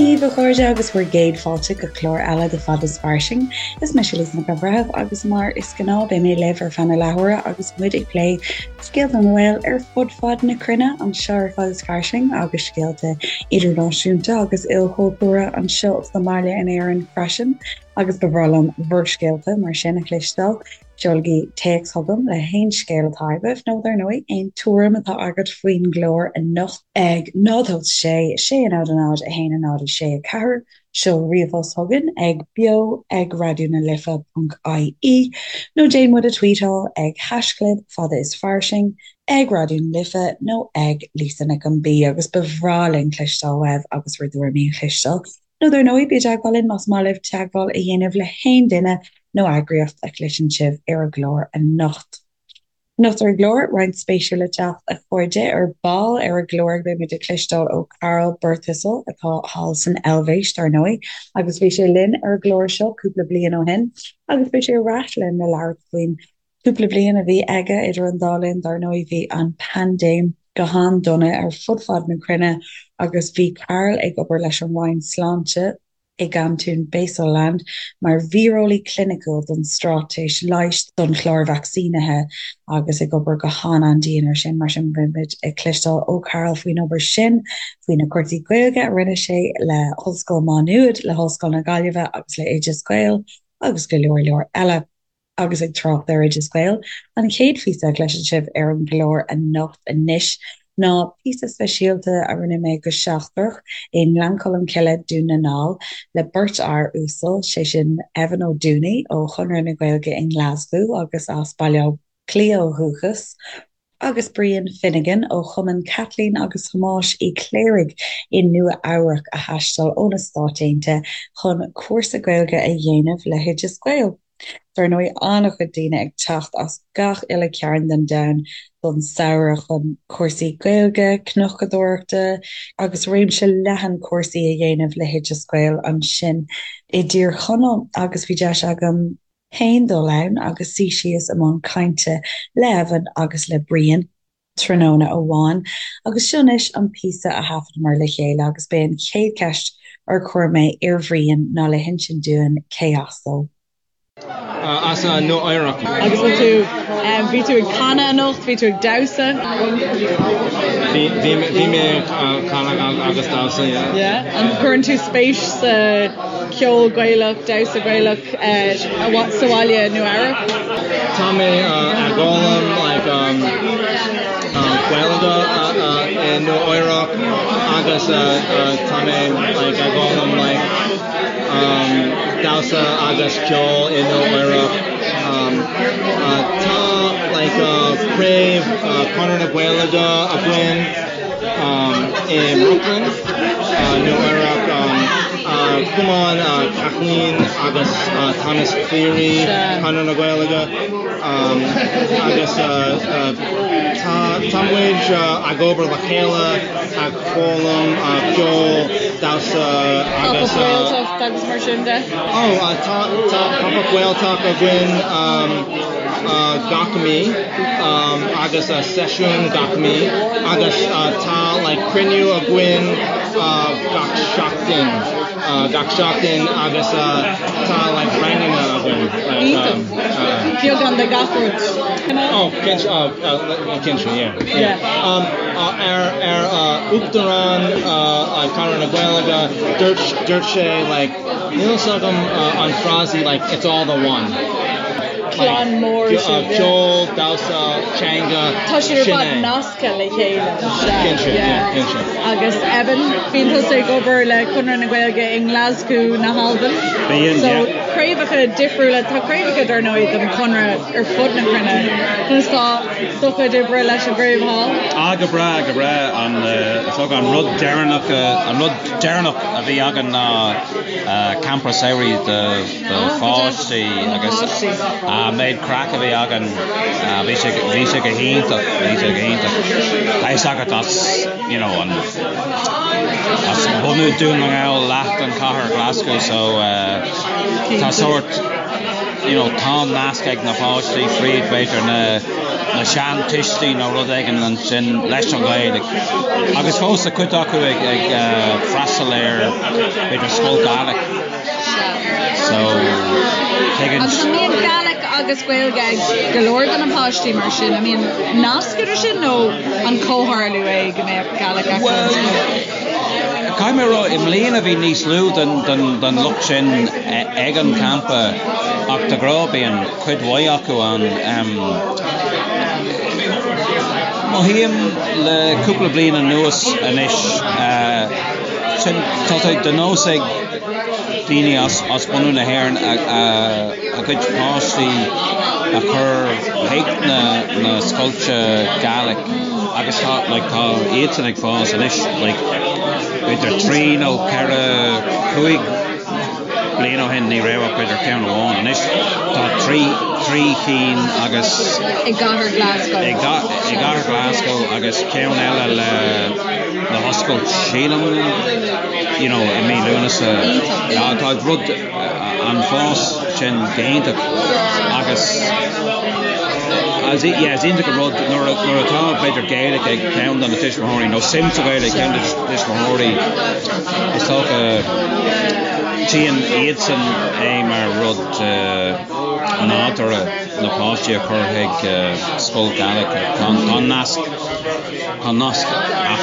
Dia dhaoibh a chairde agus bhur gcéad fáilte go clár eile de Fad is Fairsing. Is mise Lisa Nic an Bhreithimh agus mar is gnáth beidh mé libh ar feadh na leathuaire agus muid ag plé scéalta na nGael ar fud fad na cruinne anseo ar Fad is Fairsing agus scéalta idirnáisiúnta agus ilchultúrtha anseo sa mbaile in Éirinn freisin agus ba bhreá liom bhur scéalta mar sin a chloisteáil. Seolaigí téacs chugam le haon scéal atá agaibh, nó dar ndóigh, aon tuairim atá agat faoin gclár anocht ag 0 8 6 6 0 0 1 0 6 4, seol ríomhphost chugainn ag beo ag raidió na life ponc ie, nó déan muid a tweetáil ag haischlib fada is fairsing, ag Raidió na Life nó ag Lisa Nic an B agus ba bhreá linn cloisteáil uaibh agus bhur dtuairimí a chloisteáil. Nó dar ndóigh, bí i dteagmháil linn más maith libh teagmháil a dhéanamh le haon duine nó eagraíocht a chloiseann sibh ar an gclár anocht. Anocht ar an gclár, roinnt spéisiúil le teacht, a chairde. Ar ball ar an gclár beidh muid ag cloisteáil ó Karl Birthistle, atá thall san Eilvéis, dar ndóigh, agus bhí sé linn ar an gclár seo cúpla bliain ó shin agus beidh sé ar ais linn le labhairt faoin Cúpla bliain a bhí aige idir an dá linn, dar ndóigh, bhí an paindéim go han-dona ar fud fad na cruinne agus bhí Karl ag obair leis an Roinn Sláinte i gcantún Basel-Land mar víreolaí cliniciúil don straitéis leighis don chlár vacsaínithe agus ag obair go han-an-dian ar sin. Mar sin, beidh muid ag cloisteáil ó Karl faoin obair sin, faoi na cúrsaí Gaeilge a rinne sé le hOllscoil Má Nuad, le hOllscoil na Gaillimhe agus le Oideas Gael agus go leor leor eile. Agus ag trácht ar Oideas Gael, an chéad phíosa a chloisfidh sibh ar an gclár anocht anois ná píosa speisialta a rinne mé go seachtrach i nGleann Cholm Cille, Dún na nGall, le beirt fhear uasal, sé sin Evan Ó Dúnaí ó Chonradh na Gaeilge i nGlaschú agus as Baile Átha Cliath ó dhúchas, agus Brian Finnegan ó Chumann Chaitlín agus Thomáis Uí Chléirigh i Nua Eabhrac a thaistil ó na Stáit Aontaithe chun cúrsa Gaeilge a dhéanamh le hOideas Gael. Dar ndóigh, an-chuid daoine ag teacht as gach uile cearn den domhan don samhradh chun cúrsaí Gaeilge, cnocadóireachta agus réimse leathan cúrsaí a dhéanamh le hOideas Gael ansin i dTír Chonaill agus bhí deis agam féin dul ann agus suí síos i mbun cainte le Evan agus le Brian tráthnóna amháin agus seo anois an píosa a thaifeadamar le chéile agus b'é an chéad cheist ar chuir mé ar Bhrian ná le hinsint dúinn cé as dó. As Nua Eabhrac. Agus bhfuil tú, bhí tú ag canadh anocht, bhí tú ag damhsa? Bhí, bhí mé ag canadh agus damhsa, yeah. Yeah? An gcuireann tú spéis sa ceol Gaelach, damhsa Gaelach? sa bhaile i Nua Eabhrac. Tá mé ag foghlaim like Gaeilge i Nua Eabhrac agus tá mé like ag foghlaim like damhsa agus ceol i Nua Eabhrac. Tá like craobh Conradh na Gaeilge againn i mBrooklyn, Nua Eabhrac. Cumann Kathleen agus Thomas Cleary, Conradh na Gaeilge, agus tá muid ag obair le chéile, ag foghlaim ceol, damhsa agus. Pop-up Gaeltacht agus mar sin de? Ó, tá Pop-up Gaeltacht againn gach mí agus seisiún gach mí agus tá like cruinniú againn gach seachtain, gach seachtain agus tá like ranganna againn. Iontach. Beagán de gach rud. Oh, cinnte, cinnte, yeah, yeah. Ar ar Uachtarán Conradh na Gaeilge, dúirt dúirt sé like níl fhios agam an frásaí like it's all the one. Clann mór sibh, yeah. Ceol, damhsa, teanga, Tá siad ar fad nasctha le chéile. Cinnte, yeah, cinnte. Agus Evan, bíonn tusa ag obair le Conradh na Gaeilge i nGlaschú na hAlban. Bíonn, So yeah. craobhacha difriúla, tá craobhacha dar ndóigh den Chonradh ar fud na cruinne. Conas tá do chuid oibre leis an gcraobh thall? Ah, go breá, go breá. An, is dócha an rud deireanach, an rud deireanach a bhí againn ná campa samhraidh do do pháistí agus an méid craic a bhí againn, bhí sé, bhí sé go hiontach, bhí sé go hiontach. Tá fhios agat as, you know, an, as bunú Dún na nGall leath den chathair Glasgow so tá sórt, you know, tá nasc ag na páistí fríd b'fhéidir na. na seantuistí nó rud éigin ansin leis an Ghaeilge agus fós tá cuid acu ag ag freastal ar b'fhéidir scoil Gaelic so tuigeann Agus an mbíonn Gaelic agus Gaeilge ag go leor de na páistí mar sin? An mbíonn nasc idir sin nó an comhtharlú é go mbeadh Gaelic acu Bhuel, caithfidh mé a rá, i mbliana bhí níos lú den den den lucht sin ag an campa ach de ghnáth bíonn cuid mhaith acu ann. Mothaím le cúpla bliain anuas anois, sin, tá sé de nós ag daoine as bunadh na hÉireann a gcuid páistí a chur chuig na scoilte Gaelic agus tá, like, tá iadsan ag fás anois, like, b'fhéidir trí nó ceithre, cúig, Bliain ó shin ní raibh ach b'fhéidir ceann amháin. Anois tá trí chinn agus. I gcathair Glasgow. I gcathair Glasgow agus ceann eile le le hoscailt sílim you know i mí Lúnasa. Iontach. Tá rud an fás sin go hiontach agus yeah is iontach an rud nuair nuair atá b'fhéidir Gaeilge ag ceann de na tuismitheoirí nó suim sa Ghaeilge ag ceann de na tuismitheoirí is dócha tchíonn iadsan é mar rud nádúrtha na páistí a chur chuig scoil Gaelic. Tá an nasc, tá an nasc ann.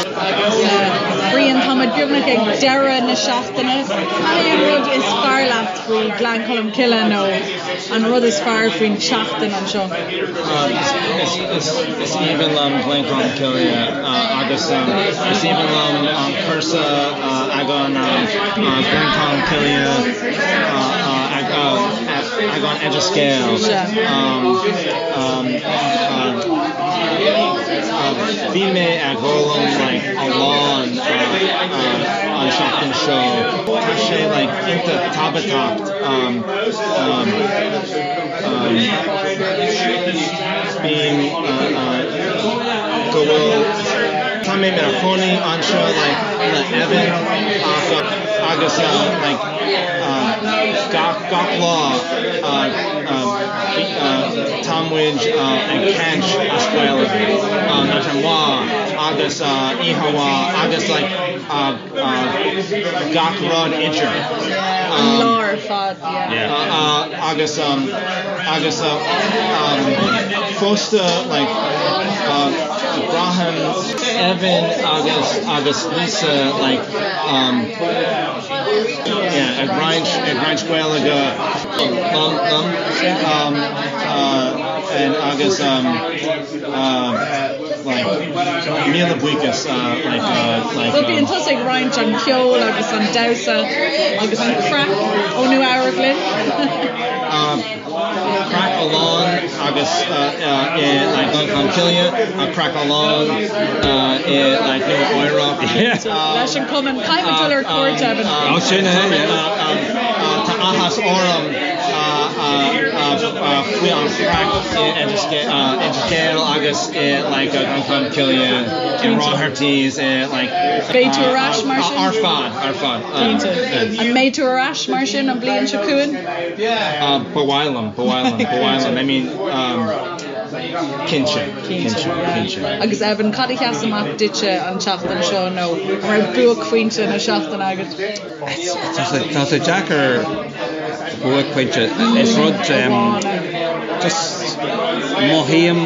Brian, tá muid beagnach ag deireadh na seachtaine. Cad é an rud is fearr leat faoi Ghleann Cholm Cille nó an rud is fearr faoin tseachtain anseo? Is aoibhinn liom Gleann Cholm Cille agus is aoibhinn liom an cúrsa ag an Gleann Cholm Cille ag an Oideas Gael. Bhí mé ag foghlaim like a lán an seachtain seo. Tá sé like iontach tábhachtach Bím go bhfuil tá mé mar chónaí anseo like le Evan ach agus like gach gach lá tá muid ag caint as Gaeilge maidin mhaith agus oíche mhaith agus like gach rud idir. An lá ar fad, yeah. Agus agus fosta like braithim Evan agus agus Lisa like yeah ag roinnt ag roinnt Gaeilge liom liom and agus like míle buíochas like like. Bhuel bíonn tusa ag roinnt an ceol agus an damhsa agus an craic ó Nua Eabhrac linn. Craic galánta agus i like Gleann Cholm Cille, craic galánta i like Nua Eabhrac. Leis an cumann caithfidh muid dul ar cuairt Evan. Ó sin é yeah. Tá áthas orm faoi an chraic i Oideas Gael agus i like Gleann Cholm Cille i Roherty's i like Beidh tú ar ais mar sin? Ar fad, ar fad. Cinnte. An mbeidh tú ar ais mar sin an bhliain seo chugainn? Ba mhaith liom, ba mhaith liom, ba mhaith liom. I mean, cinnte, cinnte, cinnte. Agus Evan, cad a sheas amach duitse an tseachtain seo nó an raibh buaicphointe na seachtaine agat? Tá sé deacair buaicphointe, is rud just mothaím,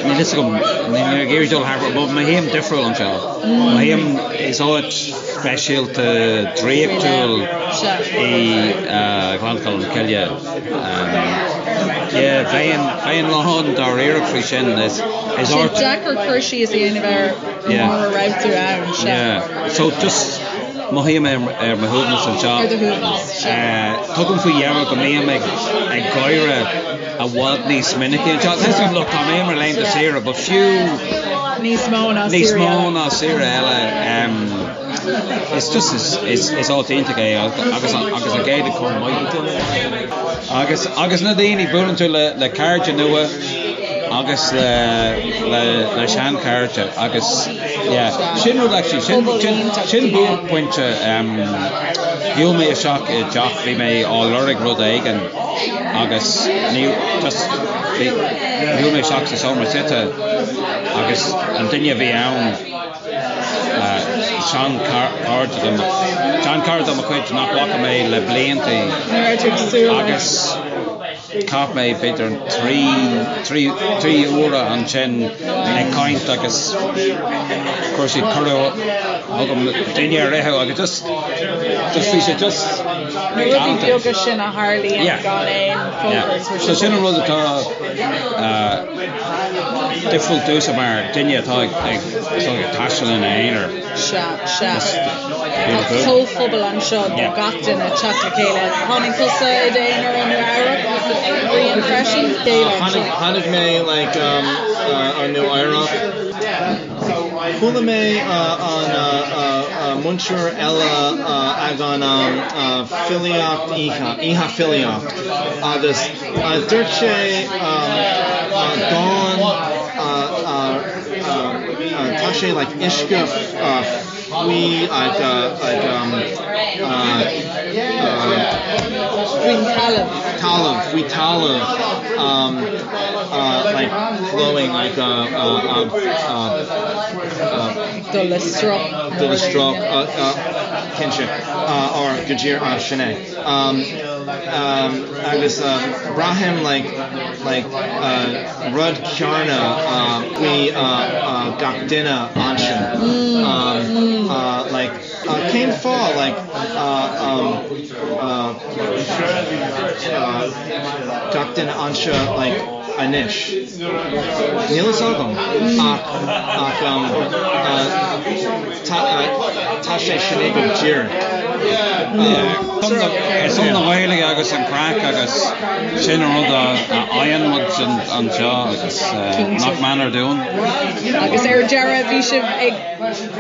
níl fhios agam, níl mé ag iarraidh dul thar but mothaím difriúil anseo. Mothaím is áit speisialta draíochtúil í Gleann Cholm Cille. Yeah, bheinn, bheinn lán dáiríreach faoi sin. Is áit. Deacair cur síos a dhéanamh air mura raibh tú ann, sea. Yeah, so just mothaím ar mo shuaimhneas anseo. Ar do shuaimhneas, sea. Tugaim faoi deara go mbím ag gáire i bhfad níos minice anseo. Tá fhios agam, look, tá mé ar laethanta saoire, but fiú Níos mó ná níos mó ná saoire eile. Is just is is áit iontach é agus agus an Ghaeilge chomh maith. Agus agus na daoine, buaileann tú le le cairde nua agus le le le seanchairde agus yeah sin rud actually sin sin sin buaicphointe shiúil mé isteach i dteach bhí mé á lorg rud éigin agus ní just. Shiúil mé isteach sa seomra suite agus an duine a bhí ann, seanchairde de mo, seanchara de mo chuid nach bhfaca mé le blianta agus chaith mé b'fhéidir 3 uaire ansin ag caint agus chuir siad cuireadh chugam dinnéar a ithe agus just, just bhí sé just Na rudaí beaga sin a tharlaíonn gan aon fógairt. So sin an rud atá difriúil domhsa mar duine atá ag taisteal ina aonar. Sea, sea. Tá comhphobal anseo do gach duine teacht le chéile. Tháinig tusa i d'aonar ó Nua Eabhrac, Brian freisin? Tháinig mé like ó Nua Eabhrac. Chuala mé an múinteoir eile ag an filíocht oíche, oíche filíocht, agus dúirt sé dán tá sé like uisce faoi like like faoin talamh talamh faoi talamh like flowing like dul le sruth dul le sruth cinnte or go díreach sin é agus braithim like like rud céanna faoi gach duine ansin like cén fáth like gach duine anseo like anois níl fhios agam ach ach tá sé sin é go díreach. Ar son na Gaeilge agus an craic agus sin an rud a fhaigheann muid anseo agus nach méanar dúinn. Agus ar deireadh bhí sibh ag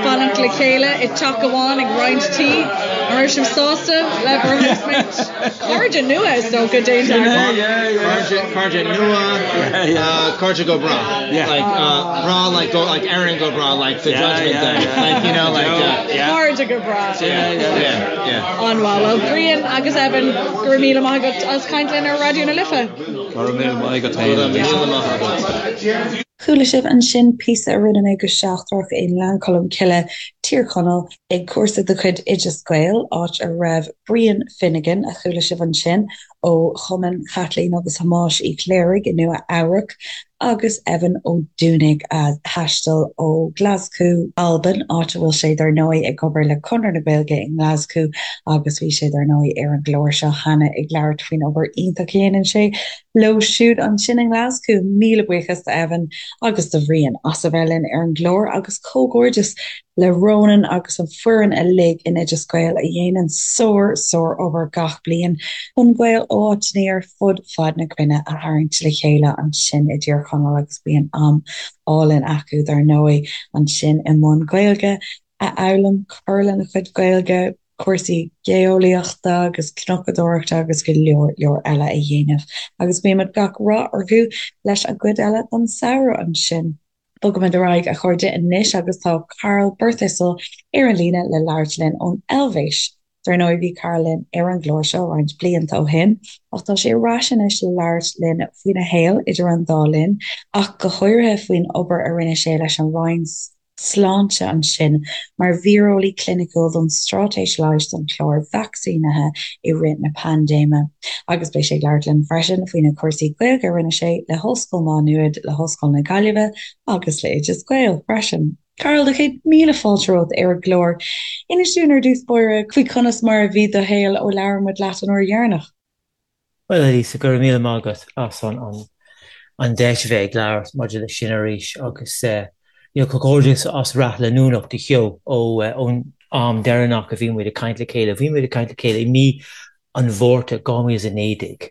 fanacht le chéile i dteach amháin ag roinnt tí. An raibh sibh sásta le bhur housemates? Cairde nua is dócha déanta agaibh. Cairde nua, cairde go bráth. Like bráth like go like Éirinn go bráth like the judgment day. Like you know like Cairde go bráth. Yeah, yeah. An-mhaith. Well Brian agus Evan, go raibh míle maith agat as caint linn ar Raidió na Life. Go raibh míle maith agat féin. Go raibh míle maith agat. Chuala sibh ansin píosa a rinne mé go seachtrach i nGleann Cholm Cille, Tír Chonaill, ag cúrsa de chuid Oideas Gael, áit a raibh Brian Finnegan, a chuala sibh ansin, ó Chumann Chaitlín agus Thomáis Uí Chléirigh i Nua Eabhrac, agus Evan Ó Dúnaigh, a thaistil ó Ghlaschú, Albain, áit a bhfuil sé dar ndóigh ag obair le Conradh na Gaeilge i nGlaschú agus bhí sé dar ndóigh ar an gclár seo cheana ag labhairt faoin obair iontach a dhéanann sé leo siúd ansin i nGlaschú. Míle buíochas do Evan agus do Bhrian as a bheith linn ar an gclár agus comhghairdeas le Ronan agus an foireann uilig in Oideas Gael a dhéanann sár, sár obair gach bliain chun Gaeil ó áiteanna ar fud fad na cruinne a tharraingt le chéile ansin i dTír Chonaill agus bíonn am álainn acu dar ndóigh ansin i mbun Gaeilge a fhoghlaim, cur lena chuid Gaeilge. cúrsaí geolaíochta agus cnocadóireachta agus go leor leor eile a dhéanamh agus guímid gach rath orthu leis an gcuid eile den samhradh ansin. Bogaimid ar aghaidh a chairde anois agus tá Karl Birthistle ar an líne le labhairt linn ón Eilvéis. Dar ndóigh bhí Karl linn ar an gclár seo roinnt blianta ó shin ach tá sé ar ais anois le labhairt linn faoina shaol idir an dá linn ach go háirithe faoin obair a rinne sé leis an Roinn Sláinte ansin mar víreolaí cliniciúil don straitéis leighis don chlár vacsaínithe i rith na paindéime. Agus beidh sé ag labhairt linn freisin faoi na cúrsaí Gaeilge a rinne sé le hOllscoil Mhá Nuad, le hOllscoil na Gaillimhe agus le Oideas Gael freisin. Karl, do chéad míle fáilte romhat ar an gclár. Inis dúinn ar dtús báire faoi conas mar a bhí do shaol ó labhair muid leat an uair dheireanach. Bhuel, a Lisa, go raibh míle maith agat as an deis a bheith ag labhairt maidir leis sin arís agus you know comhghairdeas as rath leanúnach do sheó ón am deireanach a bhí muid ag caint le chéile. Bhí muid ag caint le chéile i mí an Mhárta 2019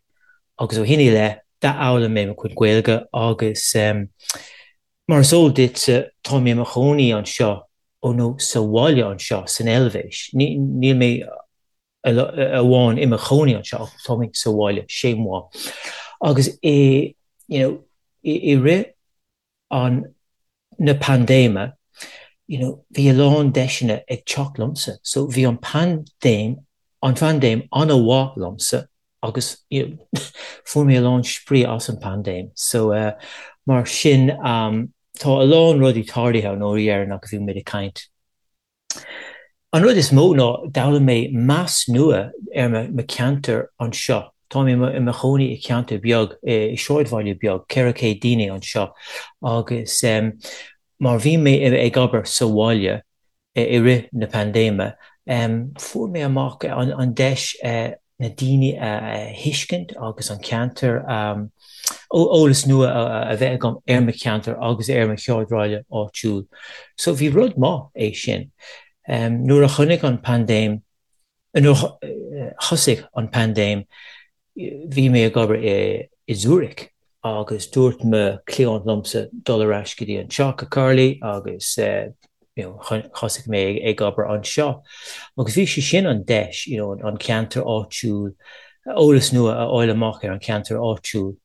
agus ó shin i leith d'fhoghlaim mé mo chuid Gaeilge agus mar is eol duitse tá mé i mo chónaí anseo ó nó sa bhaile anseo san Eilvéis. Níl mé amháin i mo chónaí anseo ach tá mé sa bhaile chez moi. Agus i you know i rith an na paindéime you know bhí a lán deiseanna ag teacht liomsa so bhí an paindéim an phaindéim an-mhaith liomsa. Agus you know, fuair mé a lán spraoi as an paindéim. So mar sin tá a lán rudaí tarlaithe ón uair dheireanach a bhí muid ag caint. An rud is mó ná d'fhoghlaim mé meas nua ar mo cheantar anseo. Tá mé i mo chónaí i cheantar beag, i sráidbhaile beag, 400 daoine anseo agus mar bhí mé ag obair sa bhaile i rith na paindéime, fuair mé amach an deis na daoine a thuiscint agus an ceantar, eolas nua a bheith agam ar mo cheantar agus ar mo shráidbhaile áitiúil. So bhí rud maith é sin. Nuair a chonaic an paindéim, nuair a thosaigh an paindéim, Bhí mé ag obair i Zurich agus dúirt mo chliant liomsa dul ar ais go dtí anseo, go Carly agus you know thosaigh mé ag obair anseo. Agus bhí sé sin an deis you know an ceantar áitiúil, eolas nua a fháil amach ar an cheantar áitiúil.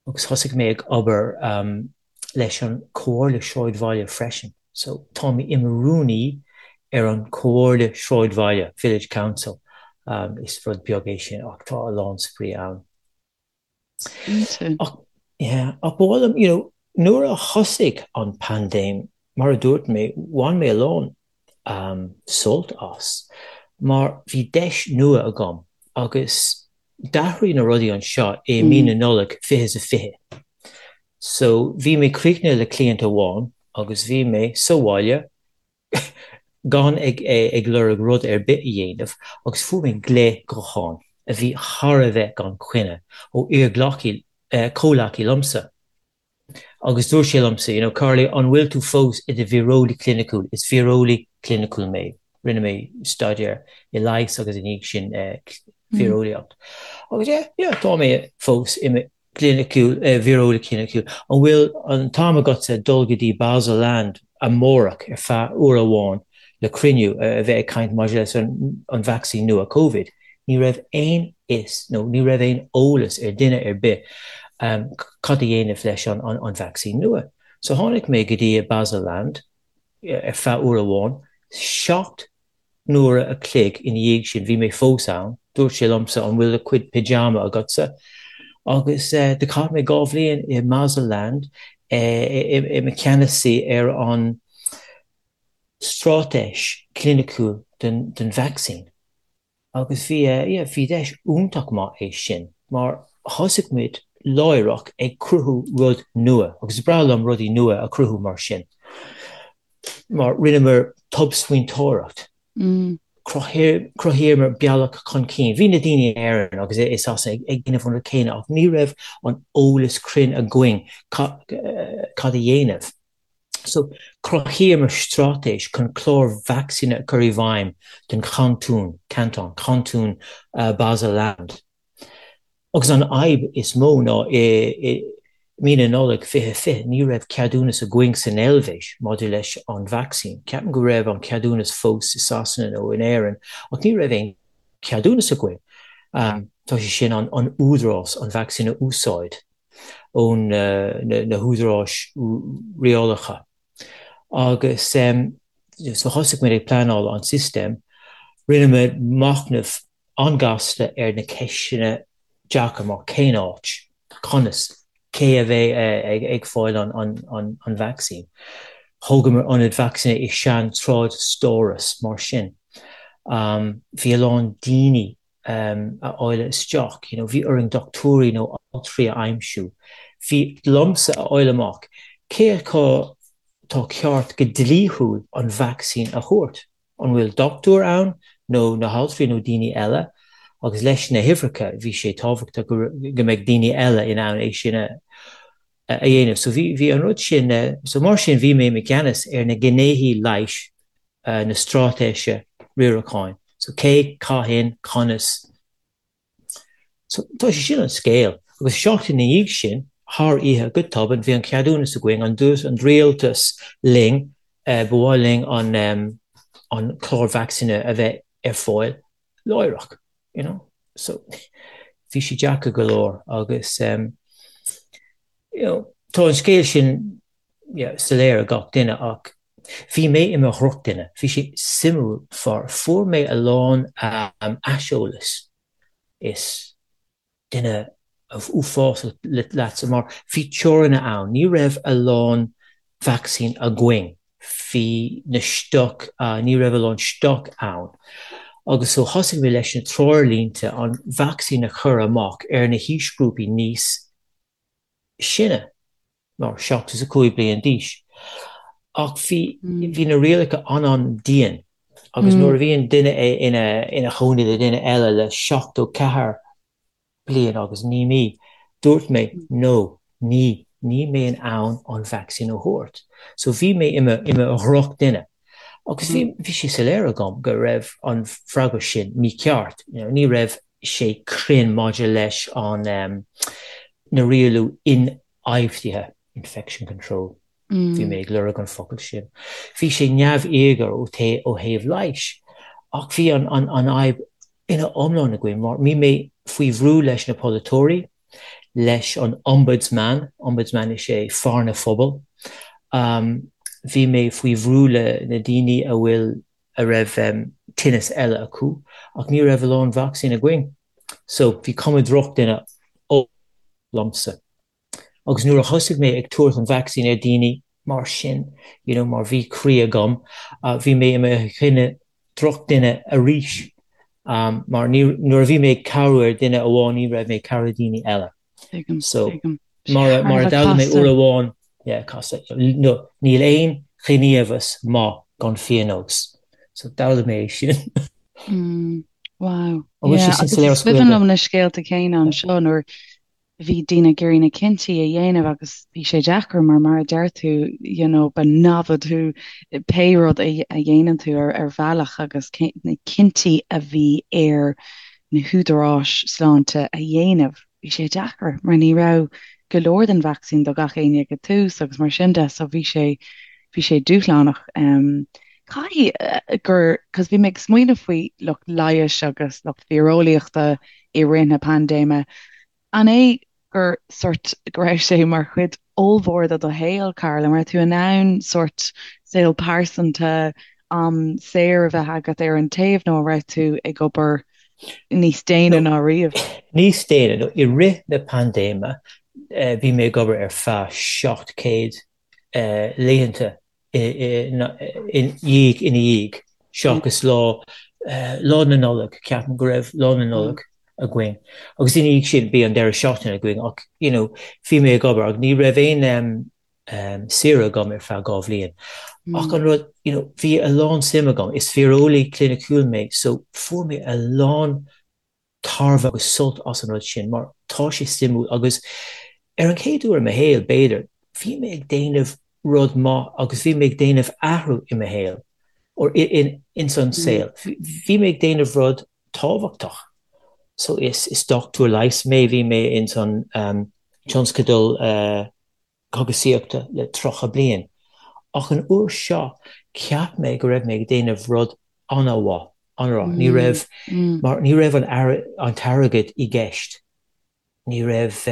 Agus thosaigh mé ag obair leis an Chomhairle Sráidbhaile freisin. So tá mé i mo rúnaí ar an Chomhairle Sráidbhaile, Village Council. Is rud beag é sin ach tá a lán spraoi ann. Cinnte. Ach, yeah, ach ba mhaith liom, you know, nuair a thosaigh an paindéim, mar a dúirt mé, bhain mé a lán sult as mar bhí deis nua agam agus D'athraigh na rudaí anseo i mí na Nollag 2020. So bhí mé críochnaithe le cliant amháin agus bhí mé sa bhaile gan ag ag lorg rud ar bith a dhéanamh agus fuair mé glao gutháin a bhí thar a bheith gan choinne ó iar-ghleacaí, comhleacaí liomsa. Agus dúirt sé liomsa, you know, Carly, an bhfuil tú fós i do víreolaí cliniciúil? Is víreolaí cliniciúil mé. Rinne mé staidéar i leigheas agus ina dhiaidh sin víreolaíocht. Agus yeah, yeah, tá mé fós i mo chliniciúil, víreolaí cliniciúil. An bhfuil an t-am agatsa dul go dtí Basel Land amárach ar feadh uair amháin le cruinniú a bheith ag caint maidir leis an vacsaín nua Covid? Ní raibh aon fhios nó ní raibh aon eolas ar duine ar bith cad a dhéanamh leis an vacsaín nua. So tháinig mé go dtí Basel Land ar feadh uair amháin. 7 n-uaire a chloig ina dhiaidh sin bhí mé fós ann. Dúirt sé liomsa an bhfuil do chuid pyjama agatsa? Agus do chaith mé 2 bhliain i mBasel Land i mo cheannasaí ar an straitéis chliniciúil don vacsaín. Agus bhí, yeah, bhí deis iontach maith é sin mar thosaigh muid láithreach ag cruthú rud nua agus is breá liom rudaí nua a chruthú mar sin mar rinneamar tobsmaointeoireacht, chruthaíomar bealach chun cinn. Bhí na daoine in Éirinn agus i Sasana ag déanamh an rud céanna ach ní raibh an eolas cruinn againn cad a dhéanamh. So, chruthaíomar straitéis chun clár vacsaíne a chur i bhfeidhm don chantún, canton, cantún Basel Land. Agus an fhadhb is mó ná i mí na Nollag 2020 ní raibh ceadúnas againn san Eilvéis maidir leis an vacsaín. Ceapaim go raibh an ceadúnas fós i Sasana nó in Éirinn ach ní raibh aon cheadúnas againn. Tá sé sin an údarás an vacsaín a úsáid. ó na húdaráis rialála. Agus so thosaigh muid ag pleanáil an system, rinne muid machnamh an-ghasta ar na ceisteanna deacair mar cén áit, conas, cé a bheidh ag fáil an vacsaín. Thógamar ionad vacsaíne i sean-trádstóras mar sin. Bhí a lán daoine a fháil isteach, you know, bhí orainn dochtúirí nó altraí a aimsiú. Bhí liomsa a fháil amach cé acu tá ceart go dlíthiúil an vacsaín a thabhairt. An bhfuil dochtúir ann nó na haltraí nó daoine eile? Agus leis na huimhreacha bhí sé tábhachtach go mbeidh daoine eile in ann é sin a dhéanamh. So bhí bhí an rud sin, so mar sin bhí mé i gceannas ar na gnéithe leighis na straitéise riaracháin. So cé, cathain, conas. So tá sé sin an scéal. Agus seachtain ina dhiaidh sin, thar oíche, go tobann, bhí an ceadúnas againn, an dúirt an rialtas linn, ba mhaith linn an an clár vacsaíne a bheith ar fáil láithreach, you know. So bhí sé deacair go leor agus you know, tá an scéal sin yeah, soiléir ag gach duine ach bhí mé i mo dhrochdhuine. Bhí sé suimiúil far fuair mé a lán aiseolas is. Duine uafásach leatsa mar bhí teorainn ann, ní raibh a lán vacsaín againn, bhí na stoc, ní raibh a lán stoc ann agus so thosaigh mé leis na treoirlínte an vacsaín a chur amach ar na haoisghrúpaí níos sine, mar 75 bliain d'aois. Ach bhí, bhí na rialacha an-an-dian agus nuair a bhíonn duine ina, ina chónaí le duine eile le 74 bliain agus 9 mí, dúirt mé no, ní, níl mé in ann an vacsaín a thabhairt. So bhí mé i mo, i mo dhrochdhuine. Agus bhí, bhí sé soiléir agam go raibh an freagra sin mícheart, you know, ní raibh sé cruinn maidir leis an, na rialú ionfhabhtaithe, infection control, bhí mé ag lorg an focal sin. Bhí sé neamhíogair ó ó thaobh leighis, ach bhí an fhadhb ina iomlán againn mar bhí mé faoi bhrú leis na polaiteoirí, leis an ombudsman, ombudsman is é fear na phobal, bhí mé faoi bhrú le na daoine a bhfuil a raibh tinneas eile acu, ach ní raibh a lán vacsaín againn. So bhí cuma drochdhuine liomsa. Agus nuair a thosaigh mé ag tabhairt an vacsaín ar daoine mar sin, you know, mar bhí croí agam, bhí mé i mo dhuine, drochdhuine arís. Mar ní, nuair a bhí mé ag cabhrú ar duine amháin, ní raibh mé ag cabhrú daoine eile. So, mar a, mar a d'fhoghlaim mé uair amháin, yeah, casta, no, níl aon ghníomhas maith gan phionós. So d'fhoghlaim mé é sin. Wow. An bhfuil sé sin soiléir as Gaeilge? Is cuimhin liom na scéalta céanna anseo nuair bhí daoine ag iarraidh na cinntí a dhéanamh agus bhí sé deacair mar mar a deir tú you know ba namhaid thú pé rud a dhéanann tú ar ar bhealach agus na cinntí a bhí ar na húdaráis sláinte a dhéanamh bhí sé deacair mar ní raibh go leor den vacsaín do gach éinne ag an tús agus mar sin de so bhí sé bhí sé dúshlánach. Um, Caithfidh gur, cos bhí mé ag smaoineamh faoi lucht leighis agus lucht víreolaíochta i rith na paindéime, an é gur sort go raibh sé mar chuid ollmhór de do shaol, Karl, an raibh tú in ann sort saol pearsanta, am saor a bheith agat ar an taobh nó an raibh tú ag obair níos déine ná riamh? Níos déine, no, i rith na paindéime bhí mé ag obair ar feadh 700 laethanta ina dhiaidh ina dhiaidh, seachas lá Lá na Nollag, ceapaim go raibh Lá na Nollag againn. Agus ina dhiaidh sin bhí an deireadh seachtaine againn ach you know bhí mé ag obair ach ní raibh aon saoire agam ar feadh 2 bhliain. Ach an rud you know bhí a lán suim agam, is víreolaí cliniciúil mé so fuair mé a lán tairbhe agus sult as an rud sin mar tá sé suimiúil agus ar an chéad uair i mo shaol, b'fhéidir, bhí mé ag déanamh rud maith agus bhí mé ag déanamh athrú i mo shaol or ins an saol. Bhí mé ag déanamh rud tábhachtach. So is is dochtúir leighis mé, bhí mé ins an tionscadal cógaisíochta le 30 bliain. Ach an uair seo, cheap mé go raibh mé ag déanamh rud an-mhaith, an-mhaith. Ní raibh, mar ní raibh an an t-airgead i gceist. Ní raibh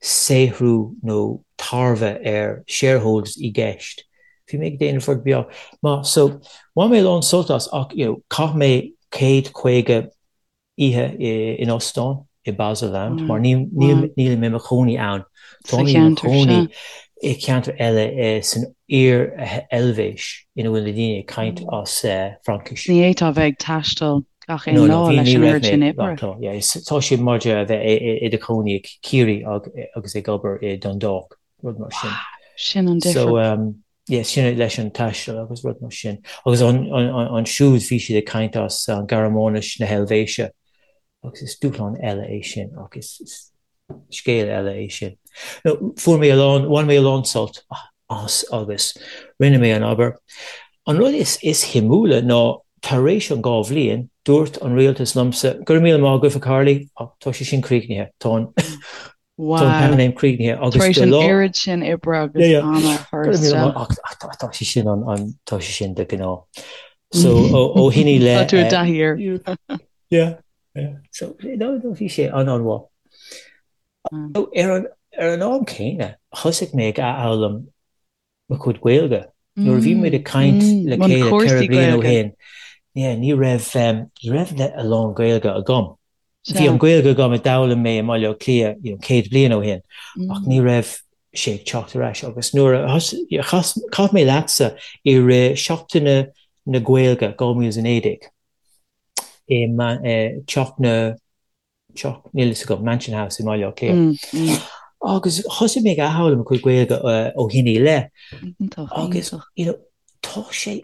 saothrú nó tairbhe ar shareholders i gceist. Bhí mé ag déanamh rud beag maith. So, bhain mé a lán sult as ach, you know, chaith mé 150 oíche in óstán i Baselland mar nílim i mo chónaí ann. Táim i mo chónaí i ceantar eile san Iar-Eilvéis ina bhfuil na daoine ag caint as Fraincis. Ní fhéadfá a bheith ag taisteal gach aon lá leis an oiread sin oibre. Tá sé mar a bheith i do chónaí i Ciarraí agus ag obair i Dundalk, rud mar sin. Sin an difear. Yeah, sin leis an taisteal agus rud mar sin. Agus ansiúd bhí siad ag caint as an Gearmáinis na hEilvéise agus is dúshlán eile é sin ach is scéal eile é sin. No, fuair mé a lán, bhain mé a lán sult as agus rinne mé an obair. An rud is is shuimiúla ná tar éis an 2 bhliain, dúirt an rialtas liomsa, go raibh míle maith agat a Charlie, ach tá sé sin críochnaithe, tá an Wow. Tá an paindéim críochnaithe agus Tar éis an oiread sin oibre agus ama a chur isteach. Ach tá sé sin an tá sé sin de ghnáth. So ó shin i leith. Tá tú i dtaithí air. Yeah, yeah. So no, no, bhí sé an-an-mhaith. So ar an ar an am céanna, thosaigh mé ag athfhoghlaim mo chuid Gaeilge. Nuair a bhí muid ag caint le chéile 4 bliana ó shin, yeah, ní raibh ní raibh a lán Gaeilge agam. Bhí an Ghaeilge agam a d'fhoghlaim mé i mBaile Átha Cliath you know, 100 bliain ó shin ach ní raibh sé ag teacht ar ais agus nuair a chaith mé leatsa i rith Seachtaine na Gaeilge 2019 i teach na teach níl fhios agam Mansion House i mBaile Átha Cliath agus thosaigh mé ag athfhoghlaim mo chuid Gaeilge ó shin i leith agus you know, tá sé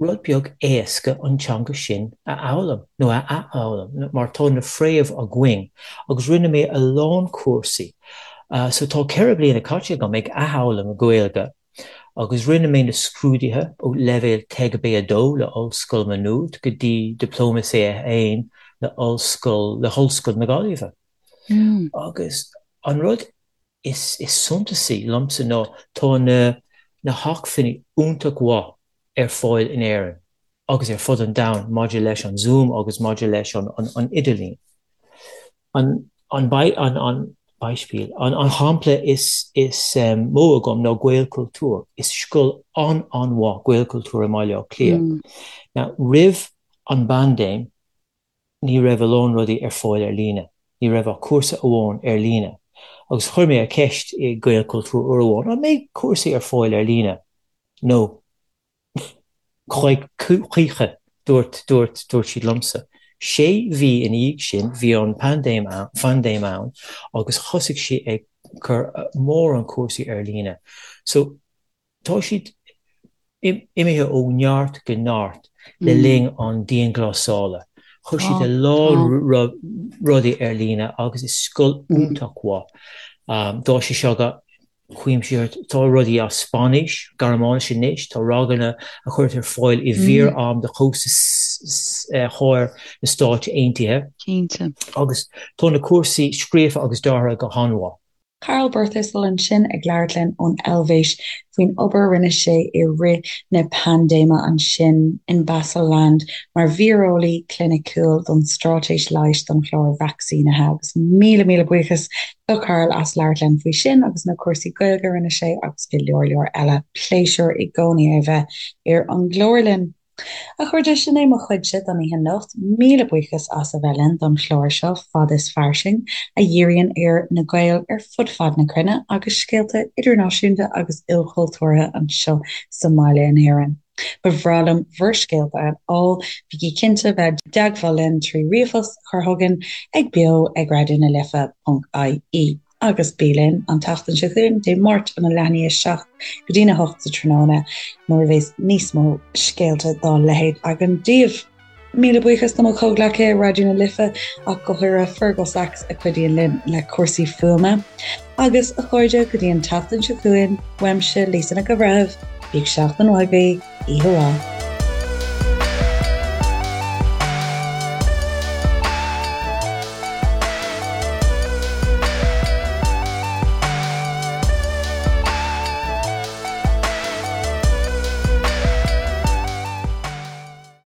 rud beag éasca an teanga sin a fhoghlaim, nó a athfhoghlaim, mar tá na fréamh againn, agus rinne mé a lán cúrsaí. So tá 4 bliana caite agam ag athfhoghlaim Gaeilge, agus rinne mé na scrúduithe ó leibhéal TEG B2 le Ollscoil Má Nuad go dtí Dioplóma C1 le Ollscoil, le hOllscoil na Gaillimhe. Agus an rud is suntasaí liomsa ná tá na na hacmhainní iontach mhaith ar fáil in Éirinn agus ar fud an domhain maidir leis an Zoom agus maidir leis an an idirlíon. An an an Beispiel, an an shampla is is mó agam ná Gaelchultúr. Is scoil an-an-mhaith Gaelchultúr i mBaile Átha Cliath. Now roimh an bpaindéim, ní raibh a lán rudaí ar fáil ar líne. Ní raibh ach cúrsa amháin ar líne. Agus chuir mé an cheist i Gaelchultúr uair amháin, an mbeidh cúrsaí ar fáil ar líne? No. Choíche, dúirt, dúirt, dúirt siad liomsa. Sé mhí ina dhiaidh sin, bhí an paindéim ann, phaindéim ann agus thosaigh sí ag cur mórán cúrsaí ar líne. So, Tá siad imithe ó neart go neart le linn an dianghlasála. Chuir siad a lán rudaí ar líne agus is scoil iontach mhaith. Tá sé seo go cuimsitheach. Tá rudaí as Spáinnis, Gearmáinis anois, tá ranganna a chuirtear ar fáil i bhfíor-am do chósta thoir na Stáit Aontaithe. Cinnte. Agus tá na cúrsaí scríofa agus deartha go han-mhaith. Karl Birthistle ansin ag labhairt linn ón Eilvéis faoin obair a rinne sé i rith na paindéime ansin in Basel-Land mar víreolaí cliniciúil don straitéis leighis don chlár vacsaínithe. Agus míle míle buíochas do Karl as labhairt linn faoi sin agus na cúrsaí Gaeilge a rinne sé agus go leor leor eile. Pléisiúr i gcónaí é a bheith ar an gclár linn. A chairde, sin é mo chuidse don oíche anocht. Míle buíochas as a bheith linn don chlár seo, Fad is Fairsing, a dhíríonn ar na Gaeil ar fud fad na cruinne agus scéalta idirnáisiúnta agus ilchultúrtha anseo sa mbaile in Éirinn. Ba bhreá liom bhur scéalta a fháil, bígí cinnte bheith i dteagmháil linn trí ríomhphost a chur chugainn ag beo ag raidió na life ponc ie. Agus bí linn an tseachtain seo chugainn, Dé Máirt óna leath i ndiaidh a 7 go dtína 8 sa tráthnóna, nuair a bheas níos mó scéalta dá leithéid againn daoibh. Míle buíochas do mo chomhghleacaithe i Raidió na Life, ach go háirithe Fergal Sachs a chuidíonn linn le cúrsaí fuaime. Agus, a chairde, go dtí an tseachtain seo chugainn, uaimse, Lisa Nic an Bhreithimh, bíodh seachtain mhaith agaibh, oíche mhaith.